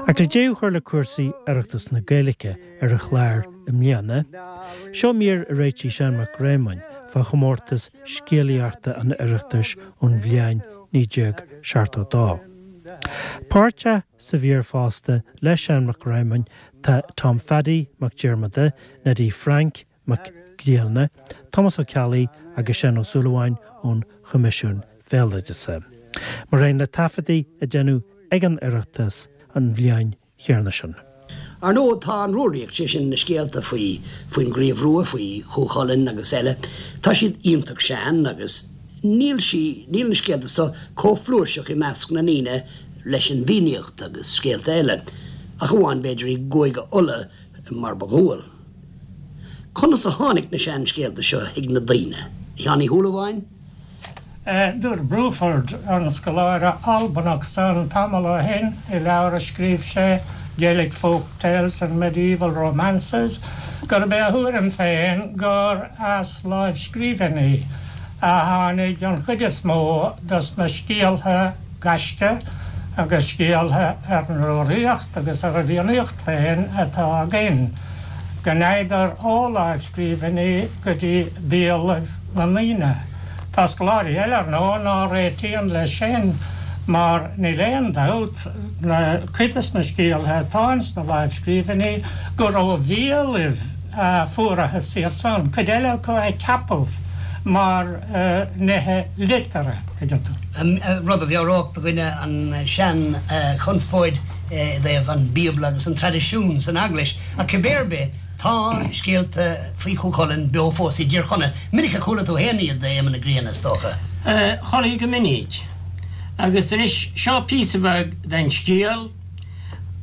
Ach le deireadh a chur le cúrsaí Oireachtas na Gaeilge ar an chlár i mbliana, seo mír a réitigh Seán Mac Réamoinn fá chomórtas scéalaíochta an Oireachtais ón bhliain 1972. Páirteach sa mhír fosta le Seán Mac Réamoinn tá Tom Pheaidí Mac Diarmada, Neidí Frainc Mac Grianna, Tomás Ó Ceallaigh agus Seán Ó Súilleabháin ón Choimisiún Bhéaloideasa. Mar aon le taifeadtaí a déanadh ag an Oireachtas an bhliain chéanna sin. Ar ndóigh, tá an Rúraíocht, sé sin na scéalta faoi, faoin gCraobh Rua, faoi Chú Chulainn agus eile, tá siad iontach sean agus níl sí, níl na scéalta so chomh flúirseach i measc na ndaoine leis an bhFiannaíocht agus scéalta eile, ach amháin b'fhéidir i gCúige Uladh mar ba dhual. Conas a tháinig na seanscéalta seo chuig na daoine? A Sheáin Uí Shúilleabháin? Dúirt Bruford, an scoláire Albanach san, tamall ó shin, i leabhar a scríobh sé, Gaelic Folk Tales and Medieval Romances, gurb é a thuairim féin gur as láimhscríbhinní a tháinig an chuid is mó dos na scéaltha gaisce agus scéaltha ar an Rúraíocht agus ar an bhFiannaíocht féin atá againn, go ndeaghadar ó láimhscríbhinní go dtí béalaibh na ndaoine. Tá scoláirí eile, ar ndóigh, ná réitíonn leis sin mar níl aon dabht, na cuid des na scéaltha atá ins na láimhscríbhinní, gur ó bhéalaibh a fuarathas iad san, cuid eile acu a ceapadh mar nithe liteartha, tuigeann tú. Rud a mheabhródh do dhuine an sean-chonspóid i dtaobh an Bíobla agus an traidisiún san Eaglais, ach cibé ar bith, Tá scéalta faoi Chú Chulainn beo fós i dTír Chonaill. Minic a chuala tú féin iad, a Éamonn na Grianna, is dócha. Chuala go minic. Agus anois seo píosa beag den scéal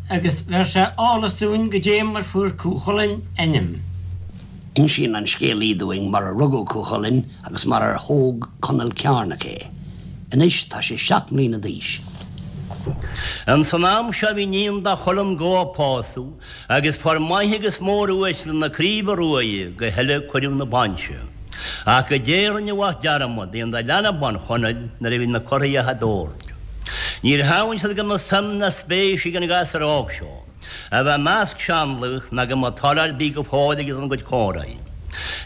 agus bheir sé eolas dúinn goidé mar fuair Cú Chulainn ainm. Insíonn an scéalaí dúinn mar a rugadh Cú Chulainn agus mar ar thóg Conall Cearnach é. Anois tá sé 7 mbliana d'aois. Ins an am seo bhí níon do Chulann Gó á pósadh Agus fuair maithe agus mór-uaisle na Craoibhe Ruaidhe go huile cuireadh na bainse. Ach goidé a rinne a mhac dearmad dhéanamh de leanbh ban Chonaill nuair a bhí na curthaighe á dtabhairt. Níor shamhail siad go mbeadh suim ná spéis ag an ghasúr óg seo a bheith i measc seanlaoch ná go mbeadh toil ar bith go fóill aige don gcuid comhráidhe.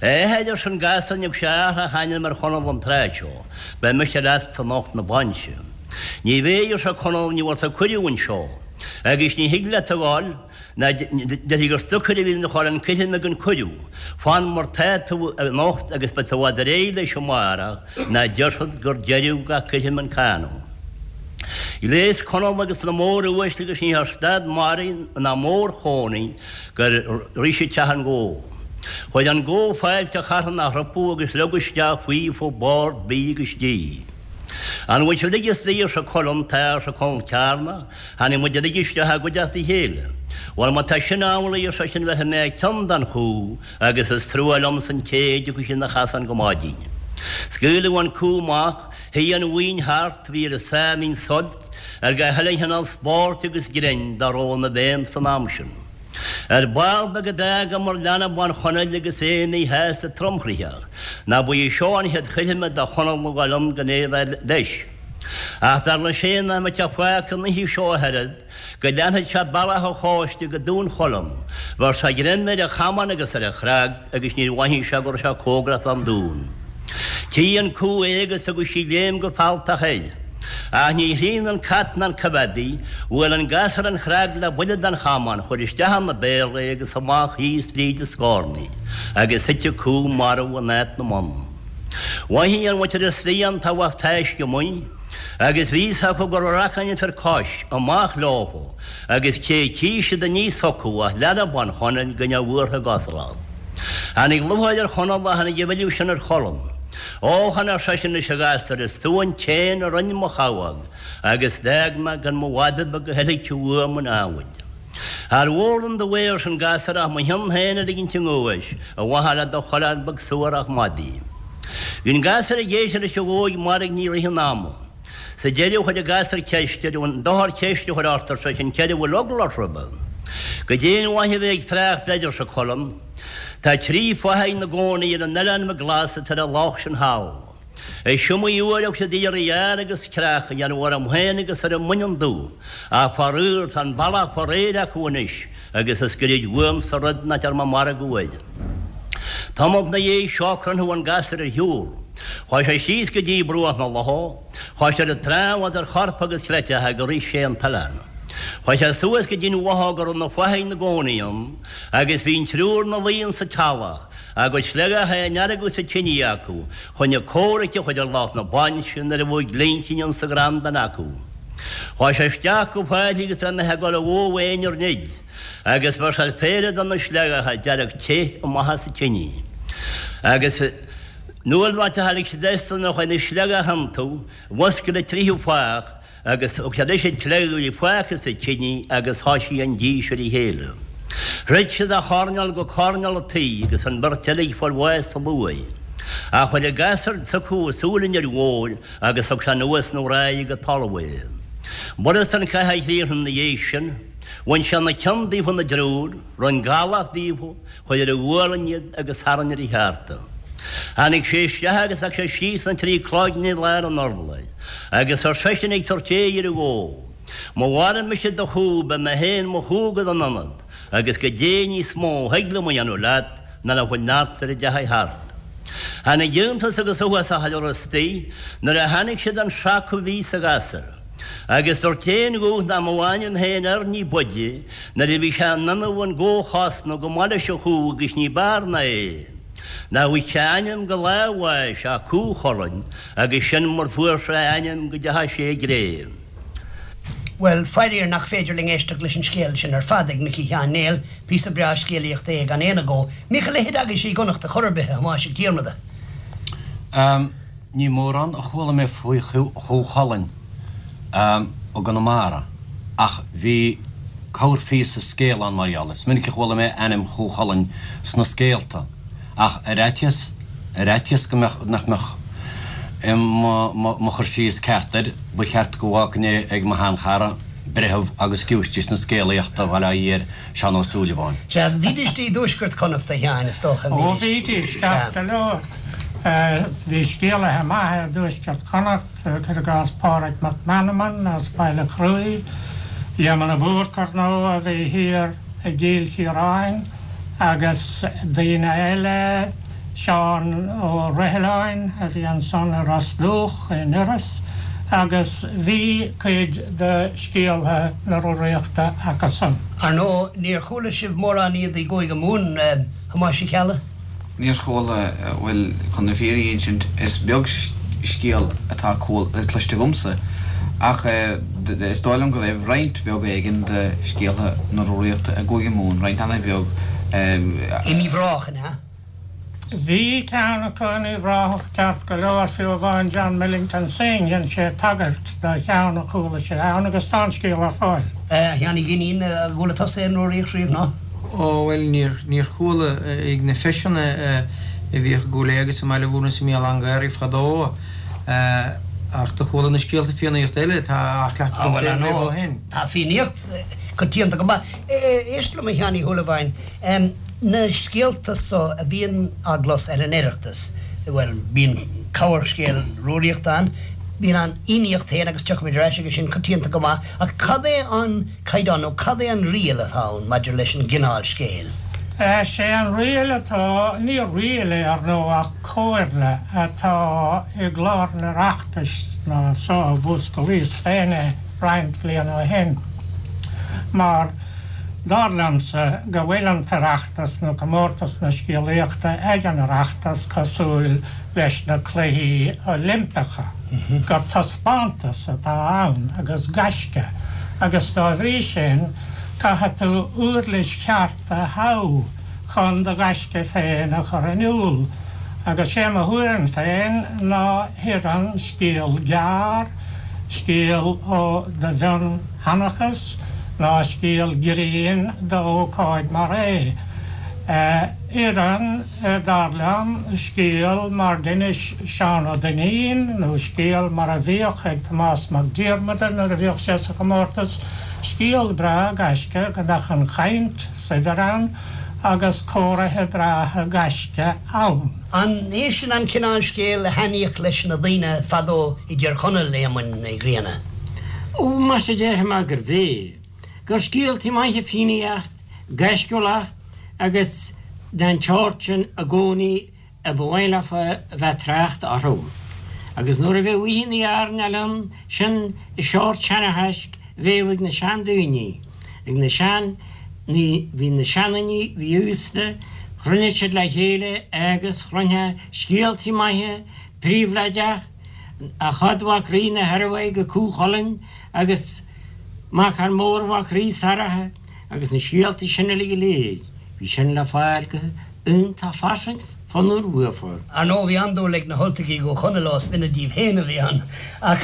A athair, arsa an gasúr, ní thug sé athrach ainm ar Chonall an tráth seo, beidh mise leatsa anocht 'na bainse. Ní bheidh, arsa Conall, ní bhfuair tú cuireadh anseo. Agus ní thig leat a ghoil, ná déarfaí gur stocaire a bhí ina chur an coithrim ag an cuireadh. Fan mar tá tú anocht agus beidh tú i bhfad réidh leis amárach, ná déarfad gur deireadh gach coithrim an canadh. Ghléas Conall agus na mór-uaisle agus ní raibh stad mara ná mór-chónaí gur shroich siad teach an ghó. Chuir an gó fáilte charthanach rompu agus leag isteach faofa bord bídh agus dí. An bhfuil sibh uilig istigh, arsa Culann, Tá, arsa Conall Cearnach, Tháinig muid uilig isteach i gcuideachta a chéile. Bhuel, má tá sin amhlaidh, ar seisean, bhéarfaidh mé cion don chú agus is trua liomsa an té a dtiocfaidh sé 'na chasán go maidin. Scaoileadh an cú amach, shuigh an bhuíon thart, bhí ar a sáimhín suilt ar gach uile chineál spóirt agus grinn dá raibh ina bhfeidhm san am sin. Ar ball beag a d'fhágamar leanbh bán Chonaill agus é míshásta tromchroíoch, ná ba í seo an chéad choirme do Chonall a ghoil ann gan é a bheith leis. Ach dar leis féin nach mbeadh sé fágtha an oíche seo ach oiread, go leanfadh sé bealach an chóiste go Dún Cholann. Bheir sé greim ar a chamán agus ar a chreag agus níor mhothaigh sé go raibh sé cóngarach don dún. Tchí an cú é agus tugadh sí léim go fealltach air. Ach ní shrian an cat ná an coimheádaí, bhuail an gasúr an chreag le buille den chamán, chuir isteach ina béal é agus amach thíos fríd an scornaigh, agus thit an cú marbh in áit na mbonn. Mhothaigh an mhuintir istigh an t-uafás taisce amuigh, agus bhí fhios acu go raibh racáin an fir cois, amach leofa, agus cé tchí siad aníos chucu ach leanbh bán Chonaill gan é bhuartha i gcosúlacht. Tháinig lúcháir ar Chonall ach tháinig a mhilleadh sin ar Chulann. Ó, chan ar seisean leis a ghasúir, is tú an t-éan a rinn mo chabhóg, agus d'fhág mé gan mo mhada beag a theilgte uaim an adhmaid. Char mhór liom do bhaoth, arsa an gasúr, ach mo chionn féin a ligint i nguais, ar mhaithe le do choileán beag suarach madaidh. Bhí an gasúr ag éisteacht leis an ghóig mairgní i rith an ama. Sa deireadh chuir an gasúr ceist air, An dochar ceist a chur ort, ar seisean, céard a bhfuil eagla ort roimhe? Goidé an mhaith a bheith ag trácht air, arsa Culann. Tá trí fathaigh 'na gcónaí ar an Oileán Glas atá ar an loch sin thall. Is iomaí uair a thug siad iarraidh fhear agus creach a dhéanamh orm féin agus ar an mbaineann dubh, ach faraor tá an bealach fá réir acu anois agus is goirid uaimsa rud nach ndearna mé margadh air. Tamall 'na dhiaidh seo croitheadh an gasúr ar shiúl. Chuaigh sé síos go dtí bruach na locha, chuaigh sé ar an trá idir chorp agus chleiteacha gur ith sé an t-oileán. Chuaigh sé suas go dtí'n bhothóg a raibh na fathaigh 'na gcónaí ann agus bhí an triúr 'na luí insa teallach, a gcuid sleagacha á ndeargadh sa tine acu chun a comhraic a chur ar lucht na bainse nuair a bheadh glincín insa gcrann duine acu. Chuaigh sé isteach go faichille agus é imithe ag dul a bhó féin ar nid. Agus bheir sé péire de na sleagacha dearg te amach as an tine. Agus nuair a tháinig siad astu nuair a chuaigh na sleagacha iontu, mhuscail an tríú fathach agus thug sé leis an tsleaga a bhí fágtha sa tine agus thoisigh an dís ar a chéile. Throid siad ó choirnéal go coirnéal an tí agus an bheirt eile ag fáil bháis sa luaith. Ach chuir an gasúr s'acu súil an fhir mhóir agus thug sé anuas 'na dhraigh go talamh é. B'fhurasta an cath a chríochnú 'na dhiaidh sin. Bhain sé na ceann daofa 'na dtriúr, rinn gallach díofa, chuir ar a ghualainn iad agus tharraing ar a cheárta. Tháinig sé isteach agus leag sé síos na trí cloigne i lár an urláir, agus ar seisean ag tabhairt aghaidh ar an bhó, Má mharaigh mise do chú, beidh mé féin mo chú agat ina ionad, agus goidé níos mó a thig liom a dhéanamh leat ná le bhfuil neart ar a dteachaidh thart. Tháinig iontas agus uafás chuile rud istigh nuair a chonaic siad an seaca a bhí sa ghasúr. Agus dúirt aon ghuth nach mbeadh a ainm féin air ní b'fhaide nuair a bhí sé in innimh an gó a chosnamh chomh maith leis an chú agus ní b'fhearr ná é. Nár bhfaigh sé ainm go lá a bháis ach Cú Chulainn agus sin mar fuair sé a ainm go dteachaidh sé i gcré. Bhuel, fairíor nach féidir linn éisteacht leis an scéal sin ar fad ag Micí Sheáin Néill, píosa breá scéalaíochta é gan aon agó. Mbíodh a leithéid agaibhse i gConnacht ar chor ar bith, a Thomáis Mhic Diarmada? Ní mórán a chuala mé faoi Chú Chulainn i gConamara ach bhí corrphíosa scéil ann mar gheall air. Is minic a chuala mé ainm Chú Chulainn sna scéalta ach ar fhaitíos ar fhaitíos go mbeadh nach mbeadh mo chur síos ceart air, ba cheart go bhfágfainn é ag mo sheanchara, breitheamh agus giúistís na scéalaíochta Bhaile Átha Fhier, Seán Ó Súilleabháin. Sea, bhídís i dtuaisceart Chonnacht, a Sheáin, is dócha, an Ó, bhídís, ceart go leor. Bhí scéalaithe maithe i dtuaisceart Chonnacht, cuir i gcás Pádraig Mac Meanman as Baile Chruaich, Éamonn de Búrca, ar ndóigh, a bhí thiar i gCill Chiaráin, agus daoine eile, Seán Ó Roighleáin a bhí ansan i Ros Dumhach in Iorras agus bhí cuid de scéaltha na Rúraíochta acusan. Ar ndóigh, níor chuala sibh mórán iad i gCúige Mumhan, a Thomáis Uí Cheallaigh? Níor chuala, bhuel, chun na fírinne a insint, is beag scéal atá cloiste agamsa, ach is dóigh liom go raibh roinnt bheag éigin de scéaltha na Rúraíochta i gCúige Mumhan, roinnt an-bheag. In Uíbh Ráthach, an ea? Bhí ceann acu in Uíbh Ráthach ceart go leor, fiú amháin John Millington Synge, dhein sé tagairt do cheann a chuala sé ann agus tá an scéal ar fáil. A Sheáin Uí Dhuinnín, ar chuala tusa aon Rúraíocht riamh, ná? Ó, bhuel, níor, níor chuala. Ag na feiseanna a bhíodh i gCúil Aodha agus i mBaile Mhúirne is i mBéal Átha an Ghaorthaidh fadó, ach do chuala na scéalta Fiannaíochta eile atá á chleachtadh agam féin riamh ó shin. Tá Fiannaíocht coitianta go maith. Éist liom, a Sheáin Uí Shúilleabháin. Na scéalta so a bhíonn á gclos ar an Oireachtas, bhuel, bíonn corrscéal Rúraíochta ann, bíonn an Fhiannaíocht féin agus tiocfaimid ar ais aige sin coitianta go maith, ach cad é an caighdeán nó cad é an riail atá ann maidir leis an gcineál scéil? Sé an riail atá, ní riail é ar ndóigh ach comhairle atá i gclár an Oireachtais ná so a mhúsclaíos féin é roinnt bhliain ó shin, mar, Dar liomsa go bhfuil an tOireachtas nó Comórtas na Scéalaíochta ag an Oireachtas cosúil leis na Cluichí Oilimpeacha, gur taispeántas atá ann agus gaisce agus dá bhrí sin caithfidh tú uirlis cheart a thoghadh chun do ghaisce féin a chur in iúl. Agus sé mo thuairim féin ná hoireann scéal gearr, scéal ó do mhionsheanchas ná scéal grinn d'ócáid mar é. Oireann, dar liom, scéal mar d'inis Seán Ó Duinnín nó scéal mar a bhíodh ag Tomás Mac Diarmada nuair a bhíodh sé sa chomórtas, scéal breá gaisce go mbeadh an chaint saibhir ann. agus cóirithe breátha gaisce ann. An é sin an cineál scéil a thaitníodh leis na daoine fadó i dTír Chonaill, a Éamoinn Uí Ghrianna? Ó, muise déarfaidh mé gurbh é. Gur scéaltaí maithe Fiannaíocht, gaisciúlacht agus den tseort sin i gcónaí a ba mhaith leofa a bheith trácht orthu. Agus nuair a bheadh oícheannaí airneáil ann, sin an seort seanchaisc a bheadh ag na seandaoine, ag na sean, ní, bhí na seandaoine, bhí aosta, chruinnigh siad le chéile agus chluinfeá scéaltaí maithe, príobháideach, Eochaidh mhac Rí na hIormhaidhe go Cú Chulainn agus Machar Mór mhac Rí Saracha agus na scéaltaí sin uilig go léir, bhí sin le fáil go iontach fairsing fonnmhar uafa. Ar ndóigh bhí an-dúil ag na hUltaigh i gCú Chonaill ós duine díobh féin a bhí ann. Ach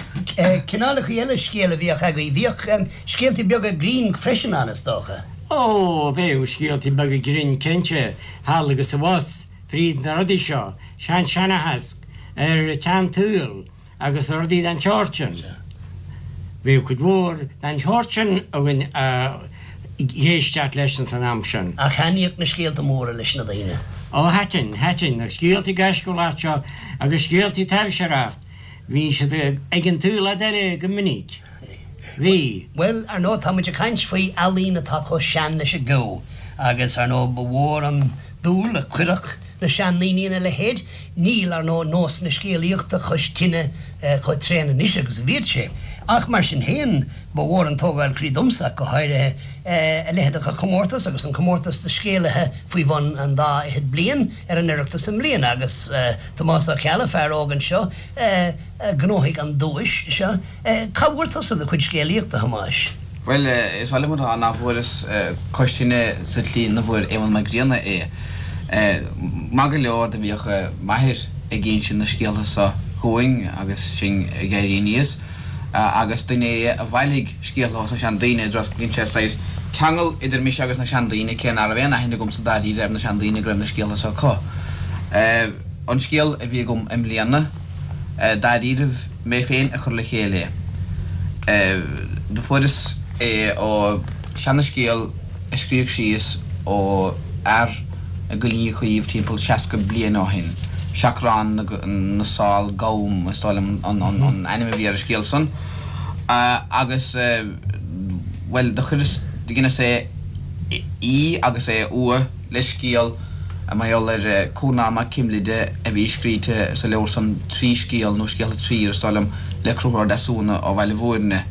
cineálacha eile scéil a bhíodh agaibh, bhíodh scéaltaí beaga grinn freisin ann is dócha? Ó, bheadh scéaltaí beaga grinn cinnte, thall agus abhus, fríd na rudaí seo, sean-seanchas ar an tsean-tsaol agus rudaí den tseort sin. Bhíodh cuid mhór den tseort sin againn a dh'éisteacht leis ins an am sin. Ach thaitníodh na scéalta móra leis na daoine. Ó thaitin, thaitin, na scéaltaí gaisciúla seo agus scéaltaí taibhseartha, bhí siad ag an tsaol fhad eile go minic. Bhí. Bhuel, ar ndóigh, tá muid ag caint faoi ealaín atá chomh sean leis an gceo agus, ar ndóigh, ba mhór an dúil a chuirfeadh na seandaoine ina leithéid. Níl, ar ndóigh, nós na scéalaíochta cois tine chomh tréan anois agus a bhíodh sé. Ach mar sin féin, ba mhór an tógáil croí domsa, ach go háirithe, a leithéid de chomórtas agus an comórtas do scéalaithe faoi bhun an dá fhichead bliain ar an Oireachtas i mbliana agus Tomás Ó Ceallaigh, fear óg anseo, a ghnóthaigh an duais seo. Cá bhfuair tusa do chuid scéalaíochta, a Thomáis? Bhuel, is oth liom a rá nach bhfuaireas cois tine sa tslí 'na bhfuair Éamonn Mac Grianna é. Maith go leor do bhíodh m'athair ag inse na scéaltha so dhúinn agus sinn ag éirí aníos, agus duine é a bhailigh scéaltha ós na seandaoine, i dtreo is dhein sé saghas ceangal idir mise agus na seandaoine, cé ná raibh aon aithne agamsa dáiríre ar na seandaoine go raibh na scéaltha so acu. An scéal a bhí agam i mbliana, dáiríribh, mé féin a chuir le chéile é. Do fuaireas é ó seana-scéal a scríodh síos ó fhear i gCoillín Chaoimh timpeall 60 bliain ó shin, Seachrán na Sál Gam is dóigh liom an ainm a bhí ar an scéal san. Agus, bhuel, do chuireas, do dheineas é í agus é a fhua le scéal mar gheall ar Cúrnán Mac Cimlide a bhí scríte sa leabhar san Trí Scéal nó Scéalta Trír, is dóigh liom, le Conchúr Ó Deasúna ó Bhaile Bhúirne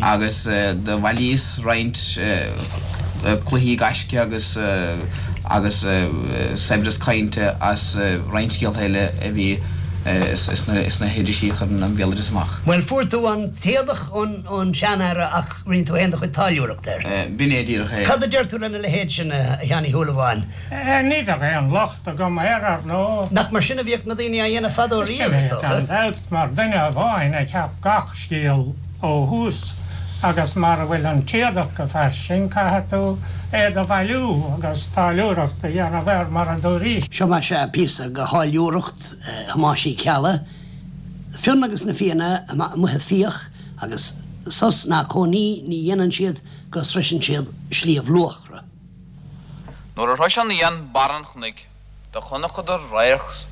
agus do bhailíos roinnt cluichí gaisce agus agus saibhreas cainte as roinnt scéalta eile a bhí sna hirisí a chuireann an béaloideas amach. Bhuel, fuair tú an t-éadach ón seanfhear ach rinne tú féin do chuid táilliúireachta air. B'in é díreach é. Cad a deir tú lena leithéid sin, a Sheáin Uí Shúilleabháin? Ní bheadh aon locht agam air, ar ndóigh. Nach mar sin a bhíodh na daoine á dhéanamh fadó riamh, is dócha? Sin é, gan dabht, mar duine amháin a cheap gach scéal ó thús, agus mara bhfuil an t-éadach go fairsing, caithfidh tú é do bhailiú agus táilliúireacht a dhéanamh air, mar a dúraís. Seo más ea píosa de tháilliúireacht Thomáis Uí Cheallaigh, Fionn agus na Fianna amuigh ag fiach agus sos ná cónaí ní dhéanann siad go sroiseann siad Sliabh Luachra. Nuair a shrois an Fhiann barr an chnoic do chonacadar radharc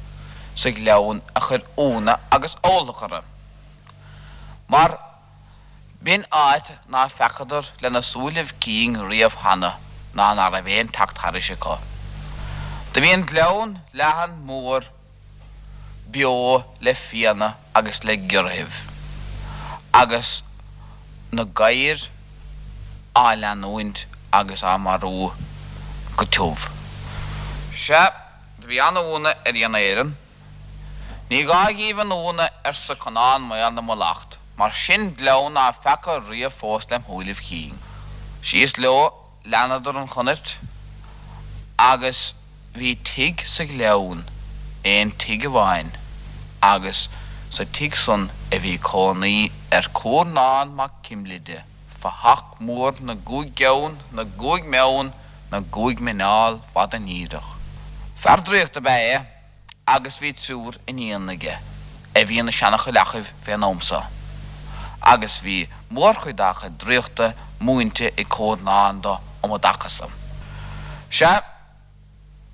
sa ghleann a chuir iúnadh agus uallach orthu, mar b'in áit ná feacadar lena súilibh cinn riamh cheana ná ná raibh aon teacht thairis acu. Do bhí an gleann leathan mór beo le fianna agus le giorraithibh, agus na gadhair á leanúint agus á marú go tiubh. Sea, do bhí an-iúnadh ar Fhianna Éireann. Ní gá dhíbh an iúnadh, arsa Conán Maol na Muileacht, mar sin gleann ná feaca riamh fós lem shúilibh chinn. Síos leo Leanadar an chonair agus bhí tigh sa ghleann, aon tigh amháin, agus sa tigh san a bhí cónaí ar Cúrnán Mac Cimlide, fathach mór na gcúig gceann, na gcúig meon, na gcúig muineál fada níreach. Fear draíochta ab ea é. agus bhí triúr iníon aige a bhí ina seana-chailleachaibh fén am so, agus bhí mórchuid dá chuid draíochta múinte ag Cúrnán do um an dtaca so. Sea.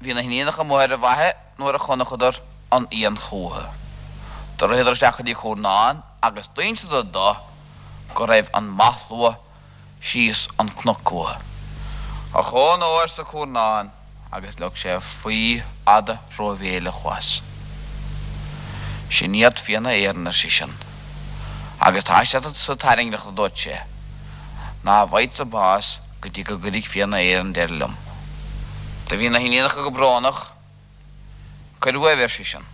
Bhí na hiníonacha amuigh ar an bhfaiche nuair a chonacadar an fhiann chúthu. Do ritheadar isteach go dtí Cúrnán agus d'inseadar do go raibh an mathshlua síos an cnoc uathu. Ochón ó, arsa Cúrnán agus leag sé faí fhada rómhéileach as. Sin iad Fianna Éireann, ar seisean, agus tá siad sa tairngreacht, a dúirt sé, ná bhfaighidsa bás go dtí go gcuirfidh Fianna Éireann deireadh liom. Do bhí na hiníonacha go brónach. Cuir uaibh, ar seisean.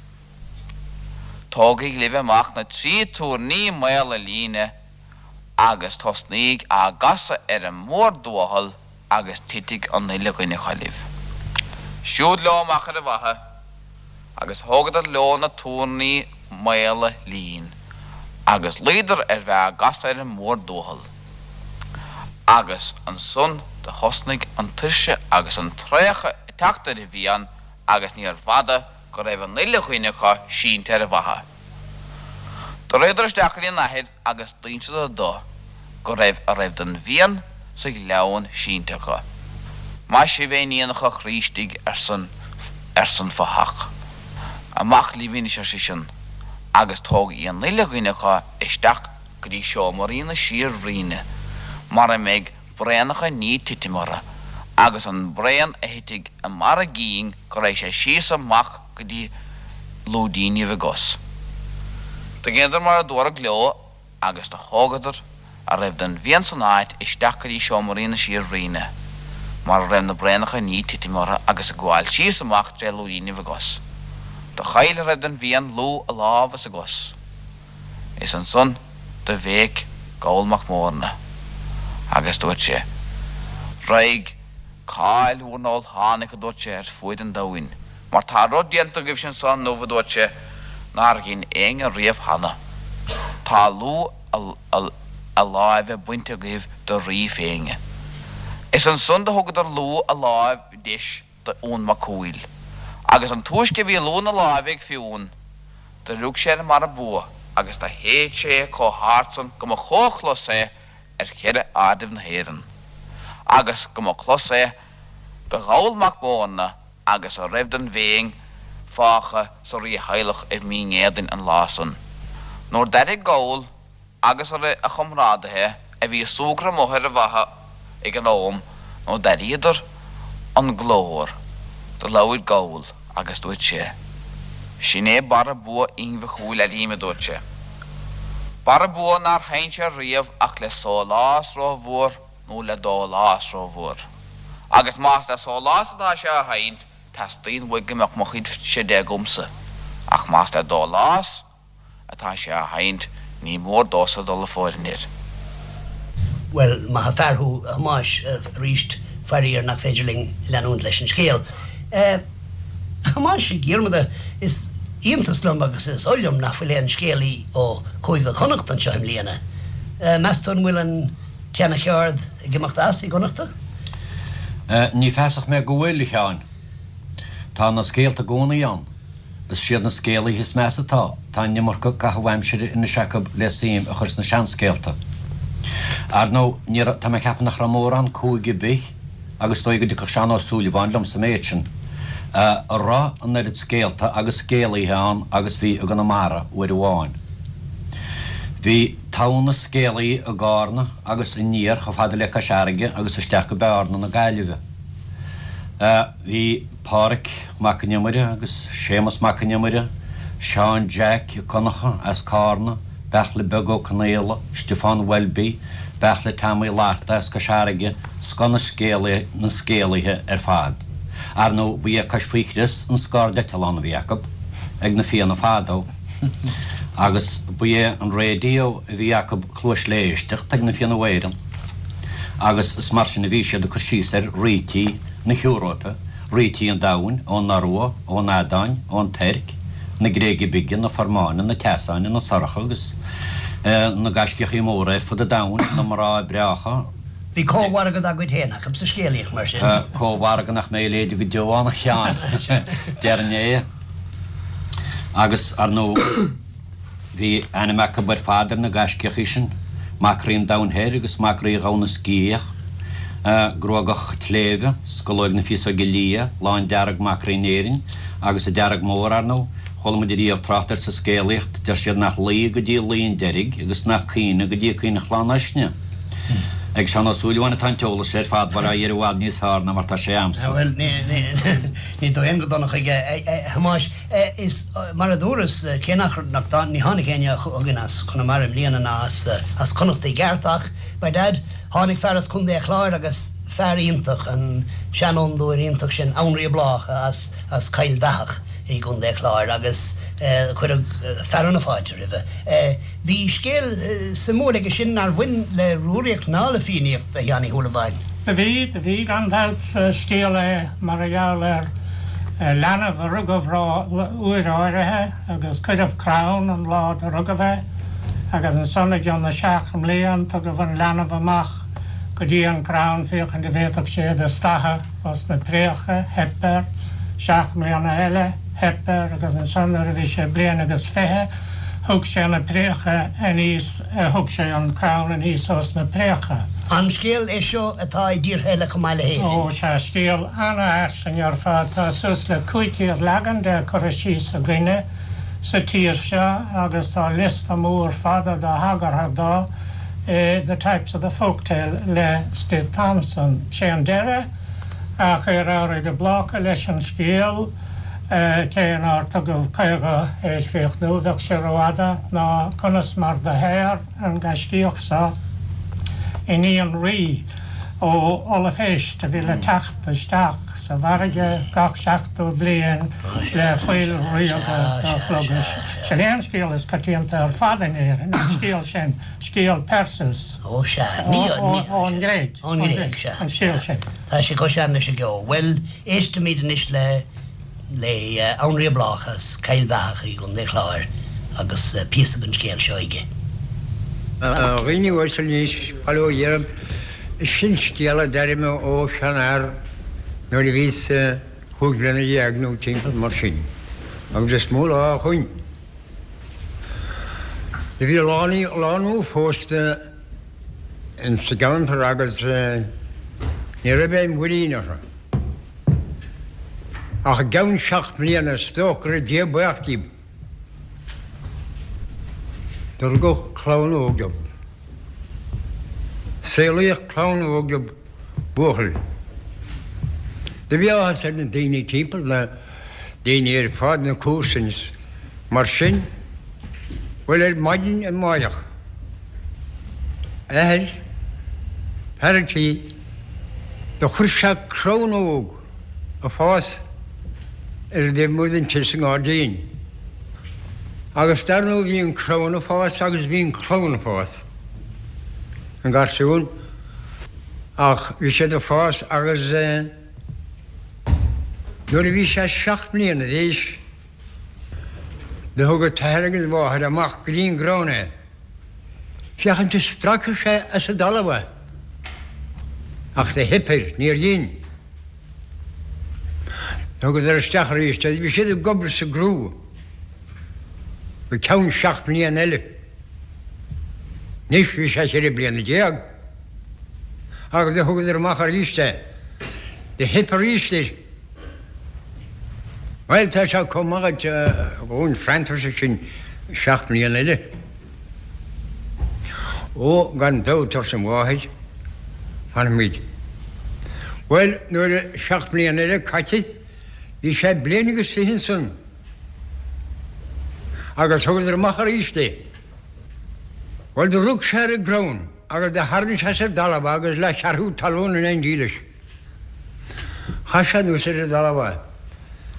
Tógaigí libh amach na trí túirní maola líne agus tosnaíg á gcasadh ar an mhórduathal agus titfidh an uile dhuine acu libh. Siúd leo amach ar an bhfaiche agus thógadar leo na túirní maola lín agus luíodar ar bheith á gcasadh ar an mhórduathal. Agus ansan do thosnaigh an tuirse agus an traochadh ag teacht ar an bhFiann agus níorbh fhada go raibh an uile dhuine acu sínte ar an bhfaiche. Do ritheadar isteach go dtí a n-athair agus d'inseadar dó go raibh a raibh den bhFiann sa ghleann sínte acu. Maith sibh a iníonacha a chroí istigh arsan arsan fathach. Amach libh anois ar seisean agus tógaigí an uile dhuine acu isteach go dtí seomraí na síor-bhruíne mar a mbeidh braonacha i ndiaidh titim orthu agus an braon a thitfidh i mbarr a gcinn go raghaidh sé síos amach go dtí lúidínibh a gcos. Do dheineadar mar a dúradh leo agus do thógadar a raibh den bhFiann san áit isteach go dtí seomraí na síor-bhruíne mar a raibh na braonacha i ndiaidh titim orthu agus ag gabháil síos amach tré lúidínibh a gcos. Do chaill a raibh den bhFiann lúth a lámh is a gcos. Is ansan do bhéic Goll Mac Mórna agus dúirt sé, Raghaidh cáil bhur n-ólthánaigh, a dúirt sé, ar fuaid an domhain, mar tá rud déanta agaibhse anso inniu, a dúirt sé, nár dhein éinne riamh cheana. Tá lúth a láimhe bainte agaibh de rí Féinne. Is ansan do thugadar lúth a láimh deis do Fhionn Mac Cumhaill. Agus an túisce a bhí lúth na láimhe ag Fionn, do rug sé ar an mbarra bua agus do shéid sé é comh hard san go mba chomhchlos é ar cheithre airdeibh na hÉireann, agus go mba clos é do Gholl Mac Mórna agus a raibh den bhFéinn fágtha sa rítheaghlach i Mín Éadain an lá san. Nuair d'airigh Goll agus a chomrádaithe a bhí ag súgradh amuigh ar an bhfaiche ag an am nuair d'airíodar an glór, do labhair Goll agus dúirt sé, Sin é barra bua Fhinn Mhic Cumhaill, airím, a dúirt sé. Barra bua nár sheinn sé riamh ach le sólás rómhór nó le dólás rómhór. Agus más le sólás atá sé á sheinnt, teastaíonn uaidh go mbeadh mo chuid-se de agamsa, ach más le dólás, atá sé á sheinnt, ní mór domhsa dul ag fóirithint air. Bhuel, maith an fear thú, a Thomáis, arís, faraor nach féidir linn leanúint leis an scéal. A Thomáis Mhic Dhiarmada, is iontas liom agus is oth liom nach bhfuil aon scéalaí ó Chúige Chonnacht anseo i mbliana. Meas tú an bhfuil an tseana-cheard ag imeacht as i gConnachta? Ní feasach mé go bhfuil, a Sheáin. Tá na scéalta i gcónaí ann. Is siad na scéalaithe is measa atá, tá an iomarca caitheamh aimsire anois acu le suim a chur sna seanscéalta. Ar ndóigh, ní raibh, tá mé ag ceapadh nach raibh mórán cúige ar bith, agus is dóigh go dtiocfadh Seán Ó Súilleabháin liom sa méid sin, a raibh an oiread scéalta agus scéalaithe ann agus bhí i gConamara uair amháin. Bhí togha na scéalaithe i gCárna agus aniar chomh fada le Cois Fharraige agus isteach go Bearna na Gaillimhe. Bhí Pádhraic Mac an Iomaire agus Séamus Mac an Iomaire, Seán Jack Ó Conchadha as Cárna, Beartla Beag Ó Conaola, Stiofán Welby, Beartla Tom Uí Fhlatharta as Cois Fharraige, scoth na na scéalaithe ar fad. Ar ndóigh, ba é Cois Faoi Chrios an scairdeitleán a bhí acu ag na Fianna fadó agus ba é an raidió a bhí acu cluais le éisteacht ag na Fianna Éireann agus is mar sin a bhí siad ag cur síos ar rítí na hEoróipe, rítí an domhain, ón Iorua, ón Eadáin, ón Tuirc, na Gréige Bige, na Formáine, na Teasáine, na Sorcha agus na gaiscíochaí móra ar fud an domhain, na mná breácha. Bhí cómhargadh dá gcuid féin acu sa scéalaíocht, mar sin. Cómhargadh nach mbeidh i léide go deo ann, a Sheáin, déarfainn é. Agus, ar ndóigh. Bhí ainm acu ar fad ar na gaiscíochaí sin, Mac Rí an Domhain Thoir agus Mac Rí Dhomhan na Sciath. Gruagach Sléibhe, Scolóig na Féasóige Liath, Lán Dearg Mac Rí Éirinn, agus an Dearg Mór, ar ndóigh. Chuala muid ariamh trácht air sa scéalaíocht, deir siad nach luí go dtí luí an deiridh agus nach caoineadh go dtí caoineadh Chlann Uisnigh. Ag Seán Ó Súilleabháin atá an t-eolas ar fad, bhuel á iarraidh i bhfad níos fearr ná mar tá sé a'msa. Bhuel, ní dóigh go dona chuige, a Thomáis. Is mar a dúras, cé nach, nach, ní tháinig éinne chugainn as Conamara i mbliana ná as, as Connacht i gceart ach, by dad, Tháinig fear as Contae a' Chláir agus fear iontach, an seanfhondúir iontach sin, Annraoi Bláca as as Coill Bheathach i gContae a' Chláir agus cuireadh fearadh na fáilte roimhe. Bhí scéal suimiúil aige sin nár bhain le Rúraíocht ná le Fiannaíocht, a Sheáin Uí Shúilleabháin. Do bhí, do bhí gan dabht. Scéal é mar a gheall ar leanbh a rugadh uair áirithe agus cuireadh crann an lá do rugadh é agus ansan i gcionn na seacht mblian tugadh an leanbh amach go dtí an crann féachaint a bhféadfadh sé do stathadh os na préacha, theip air, seacht mbliana eile, theip air agus ansan nuair a bhí sé bliain agus fiche thug sé na préacha aníos thug sé an crann aníos os na préacha. An scéal é seo atá i dtíortha eile chomh maith le hÉirinn? Ó sea, scéal ana-fhairsing ar fad. Tá suas le 500 leagan de curtha síos againne sa tír seo agus tá liosta mór fada de thagartha do i The Types of the Folktale le Stith Thompson. Sé an deireadh a chuir Annraoi de Bláca leis an scéal, cé nár tugadh chuige é a chríochnú, bheadh sé rófhada, ná conas mar do shaor an gaiscíoch so iníon rí ó ollphéist a bhí le teacht isteach sa bhfarraige gach seachtó bliain le fuil ríoga do shlogadh. Sin é an scéal is coitianta ar fad in Éirinn, an scéal sin, scéal Perseus. Ó sea, ní, ní, Ón nGréig. Ón nGréig, sea. An scéal sin. Tá sé chomh sean leis an gceo. Bhuel, éistimid anois le le Annraoi Bláca as Cill Bheathach i gContae Chláir agus píosa den scéal seo aige. A dhaoine uaisle anois, bail ó Dhia oraibh, sin scéal a d'airigh mé ó sheanfhear nuair a bhíos chúig bliana dhéag nó timpeall mar sin, agus is mó lá ó shoin. Do bhí lánúin phósta ins an gceantar agus ní raibh aon mhuirín orthu. Ach i gceann seacht mbliana is dócha go raibh Dia buíoch díobh. Do rugadh clann óg dóibh. Saolaíodh clann óg dóibh, buachaill. Do bhí áthas ar na daoine timpeall, na daoine ar fad, na comharsain is mar sin. Bhuel, ar maidin amáireach, athair, fear an tí, do chuir sé crann óg ag fás ar an dtaobh amuigh den tigh sa ngairdín. Agus dar ndóigh bhí an crann ag fás agus bhí an clann ag fás, an garsún, ach bhí siad ag fás agus nuair a bhí sé seacht mbliana d'aois do thug an t-athair agus an mháthair amach go dtí an gcrann é. Féachaint an stracfadh sé as an dtalamh é. Ach do theip air, níor dhein. Thugadar isteach arís é. Bhí siad ag obair sa gcrú go ceann seacht mbliana eile. Anois bhí sé cheithre bliana déag. Agus do thugadar amach arís é. Do theip arís air. Bhuel, tá sé chomh maith agat dhúinn freantar sin seacht mbliana eile. Ó, gan dabht, arsa an mháthair, fanfaimid. Bhuel, nuair a seacht mbliana eile caite, bhí sé bliain agus fiche ansan agus thugadar amach arís é. Bhuel, do rug sé ar an gcrann agus do tharraing sé as an dtalamh é agus leathcheathrú talún in éindí leis. Chaith sé anuas ar an dtalamh é.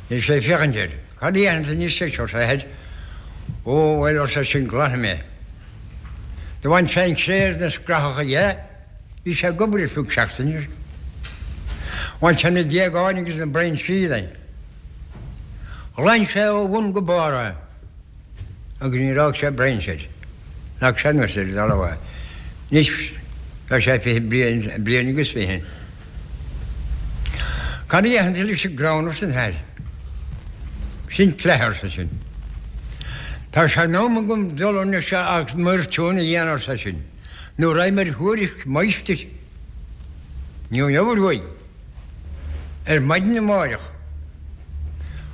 Bhí sé ag féachaint air. Cad a dhéanfaidh tú anois leis, arsa a athair. Ó, bhuel, arsa eisean, glanfaidh mé. Do bhain sé an chré agus na scrathacha dhe. Bhí sé ag obair ar feadh seachtaine. Bhain sé na géagáin agus na brainsí dhe. Ghlan sé ó bhun go barr é. agus níor fhág sé brainse air. Leag sé anuas ar an dtalamh é. Anois tá sé fiche bliain, bliain agus fiche. Cad a dhéanfaidh tú leis an gcrann arsa an t-athair. Sin cleith arsa sin. Tá sé in am agam dul anois agus m'fhoirtiún a dhéanamh arsa sin, nó raghaidh mé ar thuairisc máistir. Ní raibh aon obair uaidh. Ar maidin amáireach,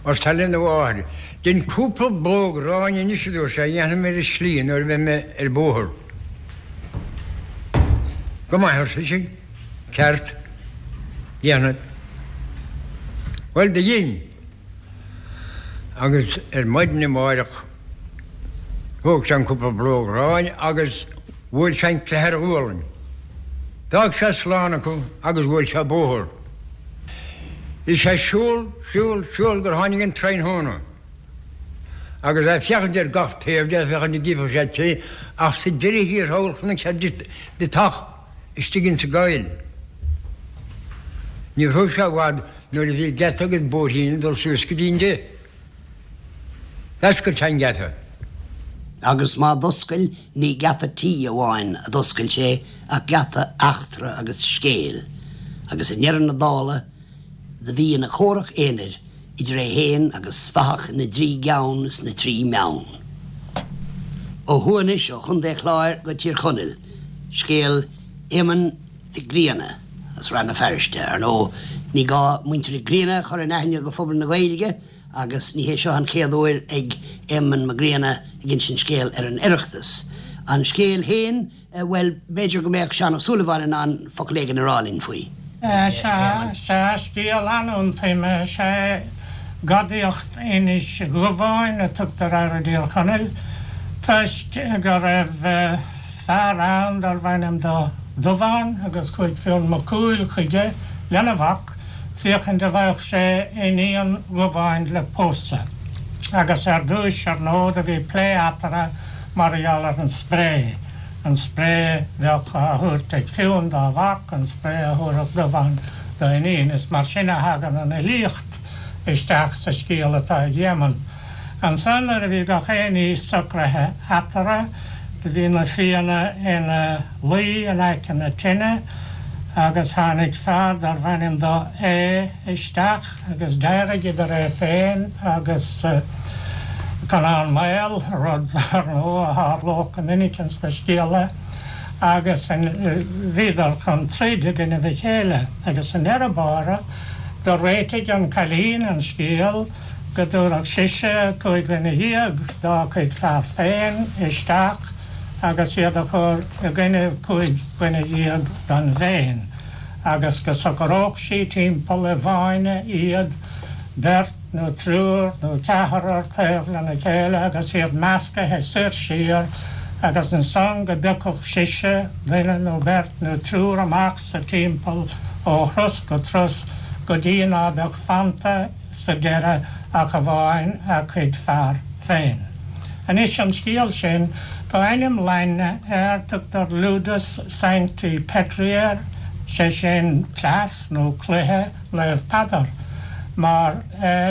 arsa sé lena mháthair, dein cúpla blóg aráin anois, a dúirt sé, a dhéanfaidh mé ar an slí nuair a bheidh mé ar bóthar. Go maith, arsa sise, ceart, déanfad. Bhuel, do dhein. Agus ar maidin amáireach thóg sé an cúpla blóg aráin agus bhuail sé an cleith ar a ghualainn. D'fhág sé slán acu agus bhuail sé bóthar. Bhí sé ag siúl, siúl, siúl gur tháinig an tráthnóna. Agus é ag féachaint ar gach taobh de, féachaint an gcífeadh sé tigh, ach sa deireadh thiar thall chonaic sé deatach istigh insa gcoill. Ní raibh sé i bhfad nuair a bhí geata agus bóithrín ag dul suas go dtí an dtigh. D'oscail sé an geata. Agus má d'oscail, ní geata tí amháin a d'oscail sé ach geata eachtra agus scéil, agus i ndeireadh na dála do bhí ina chomhrac aonair idir é fhéin agus fathach na dtrí gceann is na dtrí mbeann. Ó thuaidh anois ó Chontae Chláir go Tír Chonaill, scéal Éamoinn Mhic Grianna as Rann na Feirste. Ar ndóigh, ní gá muintir Mhic Grianna a chur in aithne do phobal na Gaeilge agus ní hé seo an chéad uair ag Éamonn Mac Grianna ag insint scéal ar an Oireachtas. An scéal féin, bhuel, b'fhéidir go mbeadh Seán Ó Súilleabháin in ann focal éigin a rá linn faoi. Sea, sea, scéal an-iontaime is ea é. Gadaíocht Inis Dhubháin a tugtar air i dTír Chonaill toisc go raibh fear ann darbh ainm dó Dubhán agus chuaigh Fionn Mac Cumhaill chuige lena mhac féachaint an bhfaigheadh sé iníon Dhubháin le pósadh. Agus ar dtúis, ar ndóigh, do bhí plé eatarthu mar gheall ar an spré, an spré bheadh á thabhairt ag Fionn dá mhac, an spré a thabharfadh Dubhán dá iníon. Is mar sin a thagann an fhilíocht isteach sa scéal atá ag Éamonn. Ansan nuair a bhí gach aon ní socraithe eatarthu, do bhí na Fianna ina luí in aice na tine agus tháinig fear darbh ainm dó Aodh isteach agus d'éirigh idir é féin agus Conán Maol, rud, ar ndóigh, a tharlódh go minic ins na scéaltha, agus bhíodar chun troid i gcoinnibh a chéile agus i ndeireadh báire do réitigh an cailín an scéal. go dtabharfadh sise 15 dhuine dá cuid fear féin isteach agus iad a chur i gcoinnibh 15 dhuine den bhFéinn, agus go socródh sí timpeall i bhfáinne iad, beirt nó triúr nó ceathrar taobh lena chéile agus iad meascaithe soir siar, agus ansan go bpiocfadh sise duine nó beirt nó triúr amach sa timpeall ó thros go tros go dtí ná beadh fanta sa deireadh ach amháin a cuid fear féin. Anois an scéal sin, tá ainm Laidne air, tugtar Ludus Sancti Petri air, sé sin cleas nó cluiche Naomh Peadar. Mar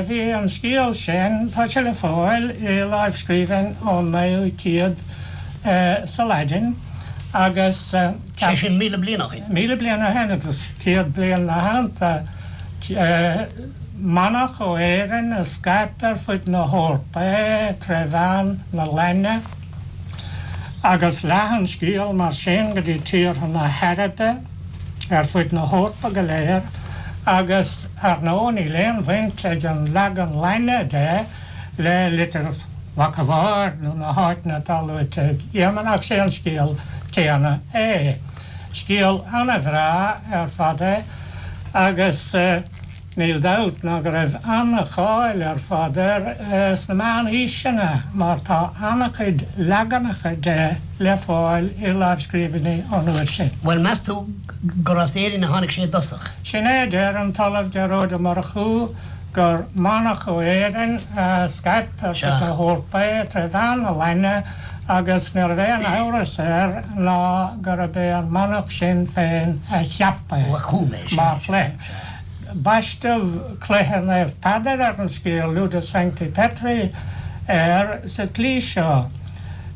bhí an scéal sin, tá sé le fáil i lámhscríbhinn ón naoú céad sa Laidin agus. Sé sin 1,000 bliain ó shin. 1,000 bliain ó shin agus 100 bliain 'na theannta. Manach ó Éirinn a scaip ar fud na hEorpa é tré mheán na Laidne agus leath an scéal mar sin go dtí tíortha na hAraibe ar fud na hEorpa go léir agus ar ndóigh níl aon bhaint ag an leagan Laidne de le Litir Mhac a' Bhaird nó na háiteanna atá luaite ag Éamonn ach sé an scéal céanna é. Scéal ana-bhreá ar fad é agus níl dabht ná go raibh ana-cháil ar fad air sna meánaoiseanna mar tá ana-chuid leaganacha de le fáil i lámhscríbhinní ón uair sin. Bhuel, meas tú gur as Éirinn a tháinig sé i dtosach? Sin é a deir an tOllamh Gearóid Ó Murchú gur manach ó Éirinn a scaip ar fud na hEorpa é tré mheán na Laidne agus ní raibh aon amhras air ná gurb é an manach sin féin a cheap é mar chluiche. Baisteadh Cluiche Naomh Peadar ar an scéal, Ludus Sancti Petri, air sa tslí seo,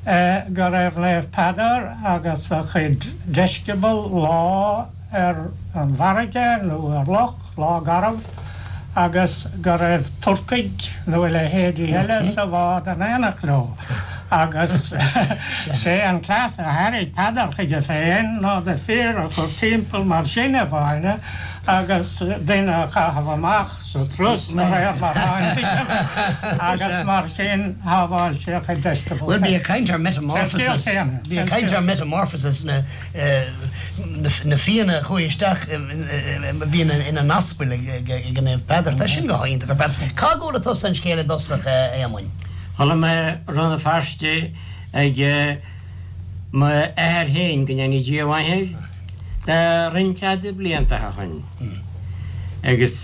go raibh Naomh Peadar agus a chuid deisceabal lá ar an bhfarraige nó ar loch, lá garbh, agus go raibh Turcaigh nó a leithéidí eile sa bhád in éineacht leo. Agus sé an cleas a thairrig Peadar chuige féin ná na fir a chur timpeall mar sin i bhfáinne agus duine a chaitheamh amach sa turas de réir mar a tháinig agus mar sin shábháil sé a chuid deisceabal Bhuel, bí ag caint ar metamorphosis, bí ag caint ar metamorphosis na na Fianna a chuaigh isteach a bhí ina n-aspail ag an Naomh Peadar. Tá sin go hiontach ar fad. Cá gcuala tusa an scéal i dtosach, a Éamoinn? Chuala mé i Rann na Feirste ag m'athair féin, go ndéana Dia a mhaith air, de roinnt fhada blianta ó shoin. Agus